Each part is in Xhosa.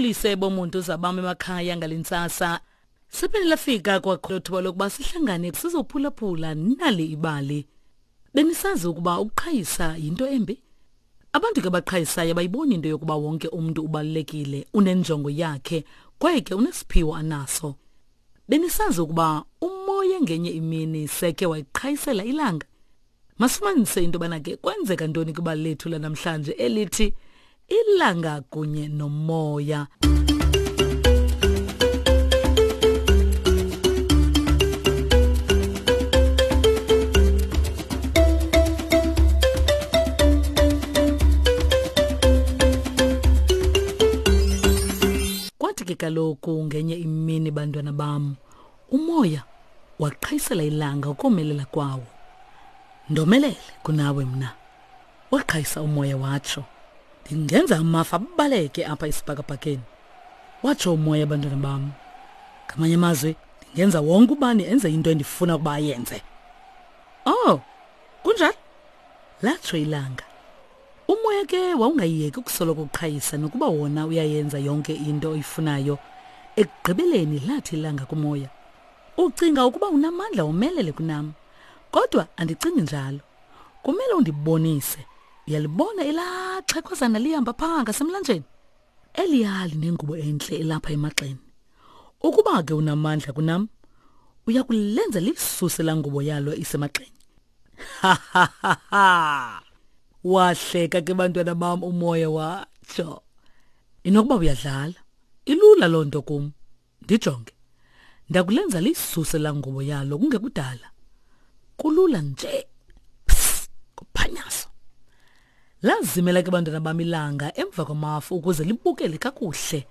Mandinibulise bomuntu zabam emakhaya ngale ntsasa. Siphinde lafika kwakho thuba lokuba sihlangane sizophulaphula nali ibali. Benisazi ukuba ukuqhayisa yinto embi? Abantu ke baqhayisayo bayiboni into yokuba wonke umntu ubalulekile, unenjongo yakhe kwaye ke unesiphiwo anaso. Benisazi ukuba umoya ngenye imini seke wayiqhayisela ilanga? Masifumanise into yobana ke kwenzeka ntoni kwibali lethu lanamhlanje elithi ilanga kunye nomoya. Kwathi ke kaloku ngenye imini bantwana bam Umoya waqhayisela ilanga ukomelela kwawo. Ndomelele kunawe mna. Waqhayisa umoya watsho. Ndingenza amafa abaleke apha esibhakabhakeni. Watsho umoya bantwana bam. Ngamanye amazwi ndingenza wonke ubani enze into endifuna ukuba ayenze. Oh, kunjalo? Latsho ilanga. Umoya ke wawungayiyeki ukusoloko uqhayisa nokuba wona uyayenza yonke into oyifunayo. Ekugqibeleni lathi ilanga kumoya, Ucinga ukuba unamandla womelele kunam, kodwa andicingi njalo. Kumele undibonise. Uyalibona elaa xhekhwazana lihamba phaa ngasemlanjeni? Eliya linengubo entle elapha emagxeni. Ukuba ke unamandla kunam, uya kulenza lisuse laa ngubo yalo isemagxeni. Wahleka ke bantwana bam umoya watsho. Inokuba uyadlala. Ilula loo nto kum. Ndijonge. Ndakulenza lisuse laa ngubo yalo kungekudala. Kulula nje. Pss, kuphanyaso. Lazimela ke bantwana bam ilanga emva kwamafu ukuze libukele kakuhle.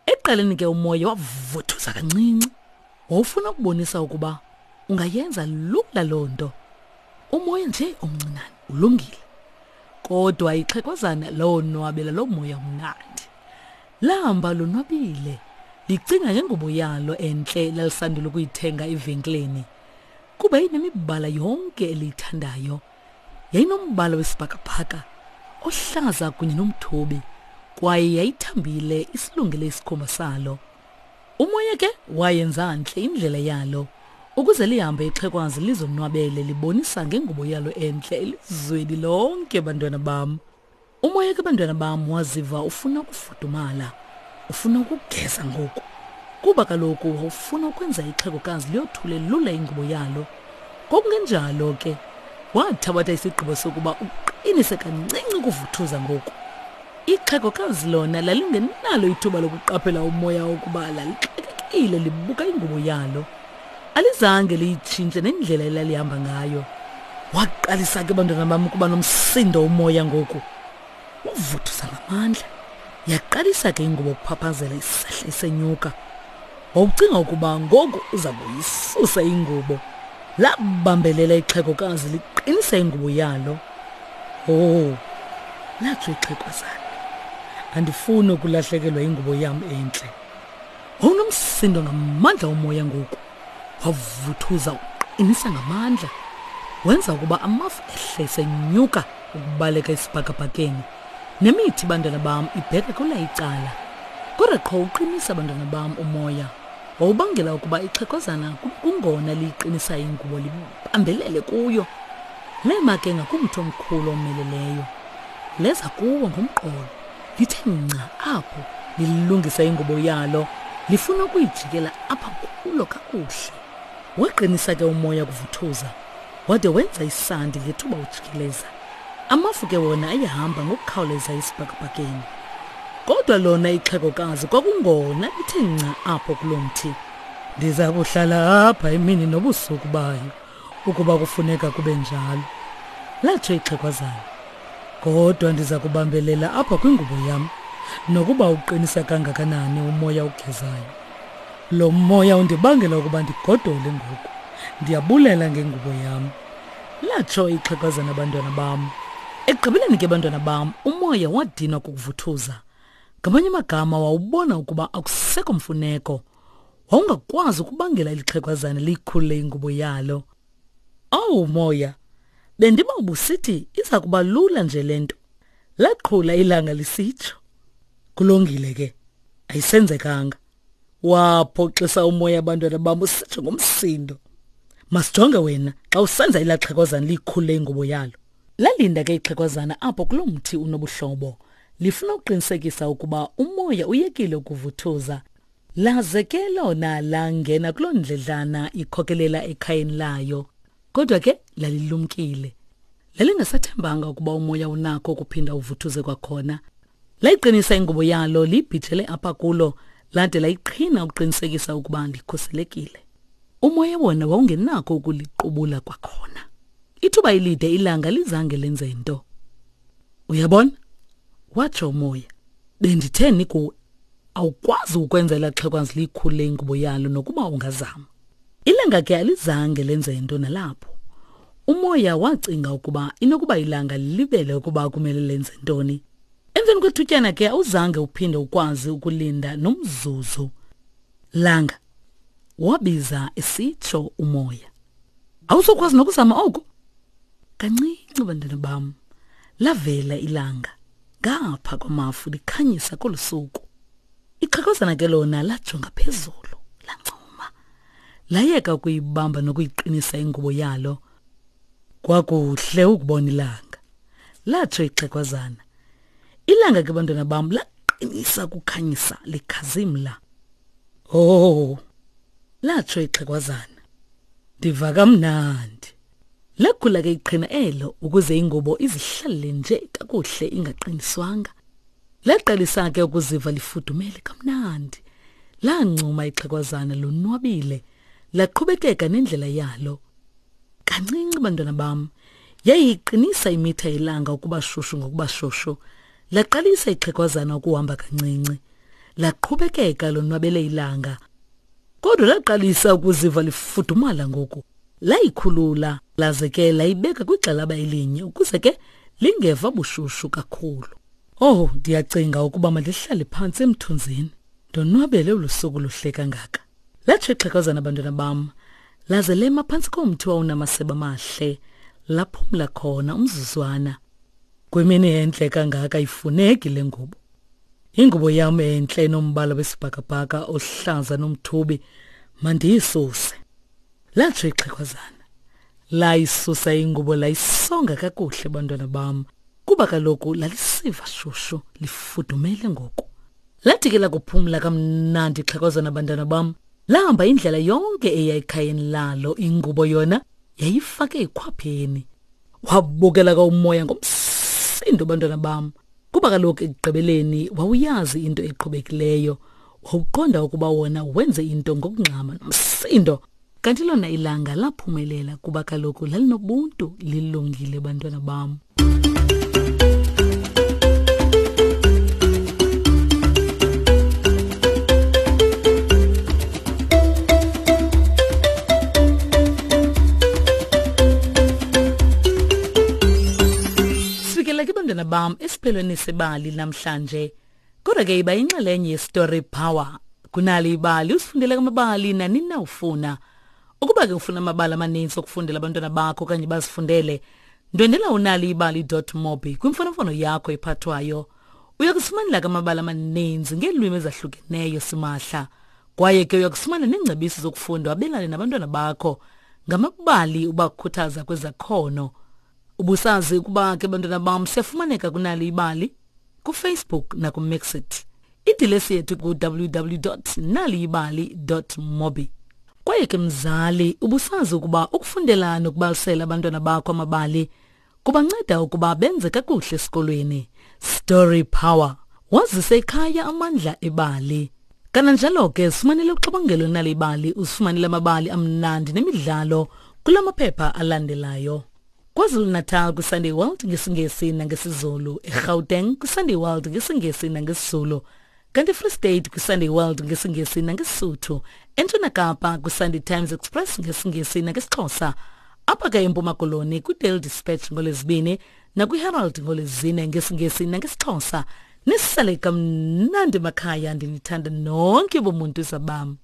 Ekuqaleni ke umoya wavuthuza kancinci. Wawufuna ukubonisa ukuba ungayenza lula loo nto. Umoya nje omncinane ulungile. Kodwa ixhekwazana lawonwabela loo moya umnandi. Lahamba lonwabile, licinga ngengubo yalo entle lalisandula ukuyithenga evenkileni. Kuba inemibala yonke eliyithandayo. Yayinombala wesibhakabhaka, ohlaza kunye nomthubi, kwaye yayithambile isilungele isikhumba salo. Umoya ke wayenza ntle indlela yalo ukuze lihambe ixhekwazi lizonwabele libonisa ngengubo yalo entle elizweni lonke bantwana bam. Umoya ke bantwana bam waziva ufuna ukufudumala, ufuna ukugeza ngoku. Kuba kaloku wawufuna ukwenza ixhegokazi liyothule lula ingubo yalo. Ngokungenjalo ke wathabatha isigqibo sokuba uqinise kancinci ukuvuthuza ngoku. Ixhegokazi lona lalingenalo ithuba lokuqaphela umoya wokuba lalixakekile libuka ingubo yalo. Alizange liyitshintshe nendlela elalihamba ngayo. Waqalisa ke bantwana bam ukuba nomsindo umoya ngoku. Wavuthuza ngamandla. Yaqalisa ke ingubo ukuphaphazela isehla isenyuka. Wawucinga ukuba ngoku uza kuyisusa ingubo. Labambelela ixhegokazi liqinisa ingubo yalo. Oh, latsho ixhekwazana. Andifuni ukulahlekelwa yingubo yam entle. Wawunomsindo ngamandla omoya ngoku. Wavuthuza uqinisa ngamandla. Wenza ukuba amafu ehle senyuka ukubaleka esibhakabhakeni. Nemithi bantwana bam ibheka kwela icala. Kodwa qho uqinisa bantwana bam umoya. Wawubangela ukuba ixhegwazana kungona liyiqinisa ingubo libambelele kuyo. Lema ke ngakumthi omkhulu omeleleyo. Leza kuwo ngomqolo. Lithe nca apho lilungisa ingubo yalo lifuna ukuyijikela apha kulo kakuhle. Waqinisa ke umoya kuvuthuza wade wenza isandi ngethuba ujikeleza. Amafu ke wona ayehamba ngokukhawuleza esibhakabhakeni. Kodwa lona ixhegokazi kwakungona lithe nca apho kulo mthi. Ndiza kuhlala apha imini nobusuku bayo ukuba kufuneka kube njalo, latsho ixhegwazana. Kodwa ndiza kubambelela apha kwingubo yam nokuba uqinisa kangakanani umoya ugezayo. Lo moya undibangela ukuba ndigodole ngoku. Ndiyabulela ngengubo yam. Latsho ixhegwazana bantwana bam. Ekugqibeleni ke bantwana bam, umoya wadinwa kukuvuthuza. Ngamanye amagama wawubona ukuba akusekho mfuneko. Wawungakwazi ukubangela eli xhegwazana liyikhulule ingubo yalo. Owu moya, bendiba ubusithi iza kuba lula nje le nto. Laqhula ilanga lisitsho. Kulungile ke. Ayisenzekanga. Waphoxisa umoya abantwana bam usitsho ngomsindo. Masijonge wena xa usenza elaa xhekwazana liyikhulule ingubo yalo. Lalinda ke ixhekwazana apho kuloo mthi unobuhlobo, lifuna ukuqinisekisa ukuba umoya uyekile ukuvuthuza. Laze ke lona langena kuloo ndledlana ikhokelela ekhayeni layo. Kodwa ke lalilumkile. Lalingasathembanga ukuba umoya unakho ukuphinda uvuthuze kwakhona. Layiqinisa ingubo yalo liyibhijele apha kulo lade layiqhina ukuqinisekisa ukuba likhuselekile. Umoya wona wawungenakho ukuliqubula kwakhona. Ithuba elide ilanga lizange lenze nto. Uyabona? Watsho umoya. Benditheni kuwe? Awukwazi ukwenza elaa xhekwazi liyikhulule ingubo yalo nokuba ungazama. Ilanga ke alizange lenze nto nalapho. Umoya wacinga ukuba inokuba ilanga lilibele ukuba kumele lenze ntoni. Emveni kwethutyana ke awuzange uphinde ukwazi ukulinda nomzuzu. Langa, wabiza esitsho umoya. Awuzokwazi nokuzama oku? Kancinci bantwana bam, lavela ilanga ngapha kwamafu likhanyisa kolu suku. Ixhegwazana ke lona lajonga phezulu, lancuma. Layeka ukuyibamba nokuyiqinisa ingubo yalo. Kwakuhle ukubona ilanga, latsho ixhegwazana. Ilanga ke bantwana bam laqinisa ukukhanyisa likhazimla. Oh, latsho ixhegwazana. Ndiva kamnandi. Lakhula ke iqhina elo ukuze ingubo izihlalele nje kakuhle ingaqiniswanga. Laqalisa ke ukuziva lifudumele kamnandi. Lancuma ixhegwazana lonwabile, laqhubekeka nendlela yalo. Kancinci bantwana bam, yayiqinisa imitha yelanga ukuba shushu ngokuba shushu. Laqalisa ixhegwazana ukuhamba kancinci. Laqhubekeka lonwabele ilanga. Kodwa laqalisa ukuziva lifudumala ngoku. Layikhulula laze ke layibeka kwigxalaba elinye ukuze ke lingeva bushushu kakhulu. Oh, ndiyacinga ukuba mandihlale phantsi emthunzini ndonwabele olu suku luhle kangaka. Latsho ixhegwazana bantwana bam, laze lema phantsi komthi wawunamasebe amahle, laphumla khona umzuzwana. Kwimini entle kangaka ayifuneki le ngubo. Ingubo yam entle enombala wesibhakabhaka ohlaza nomthubi mandiyisuse. Latsho ixhegwazana. Layisusa ingubo layisonga kakuhle bantwana bam kuba kaloku lalisiva shushu lifudumele ngoku. Lathi ke lakuphumla kamnandi ixhegwazana bantwana bam lahamba indlela yonke eya ekhayeni lalo ingubo yona yayifake ekhwapheni. Wabukela ka umoya ngomsindo bantwana bam kuba kaloku ekugqibeleni wawuyazi into eqhubekileyo wawuqonda ukuba wona wenze into ngokungxama nomsindo kanti lona ilanga laphumelela kuba kaloku lalinobuntu lilungile bantwana bam Sifikela ke bantwana bam esiphelweni sebali namhlanje. Kodwa ke iba inxalenye yeStory Power. Kunali ibali usifundele amabali nanini na ufuna. Ukuba ke ufuna amabali amaninzi okufundela abantwana bakho okanye bazifundele, ndwendela unaliibali.mobi kwimfonomfono yakho ephathwayo. Uya kusifumanela ke amabali amaninzi ngeelwimi ezahlukeneyo simahla. Kwaye ke uya kufumana neengcebiso zokufunda wabelane nabantwana bakho ngamabali ubakhuthaza kwezakhono. Ubusazi ukuba ke bantwana bam siyafumaneka kunali ibali kuFacebook nakuMixit. Idilesi yethu ku-www.naliyibali.mobi. Kwaye ke mzali, ubusazi ukuba ukufundela nokubalisela abantwana bakho amabali kubanceda ukuba benze kakuhle esikolweni. Story Power. Wazise ekhaya amandla ebali. Kananjalo ke sifumanele uxabangelo nali ibali, usifumanele amabali amnandi nemidlalo kula maphepha alandelayo. KwaZulu-Natal kwiSunday World ngesiNgesi nangesiZulu, eGauteng kwiSunday World ngesiNgesi nangesiZulu, kanti eFree State kwiSunday World ngesiNgesi nangeSuthu, eNtshona Kapa kwiSunday Times Express ngesiNgesi nangesiXhosa, apha ke eMpuma Koloni kwiDaily Dispatch ngoLwezibini nakwiHerald ngoLwezine ngesiNgesi nangesiXhosa. Nisale kamnandi makhaya, ndinithanda nonke bomuntu zabam.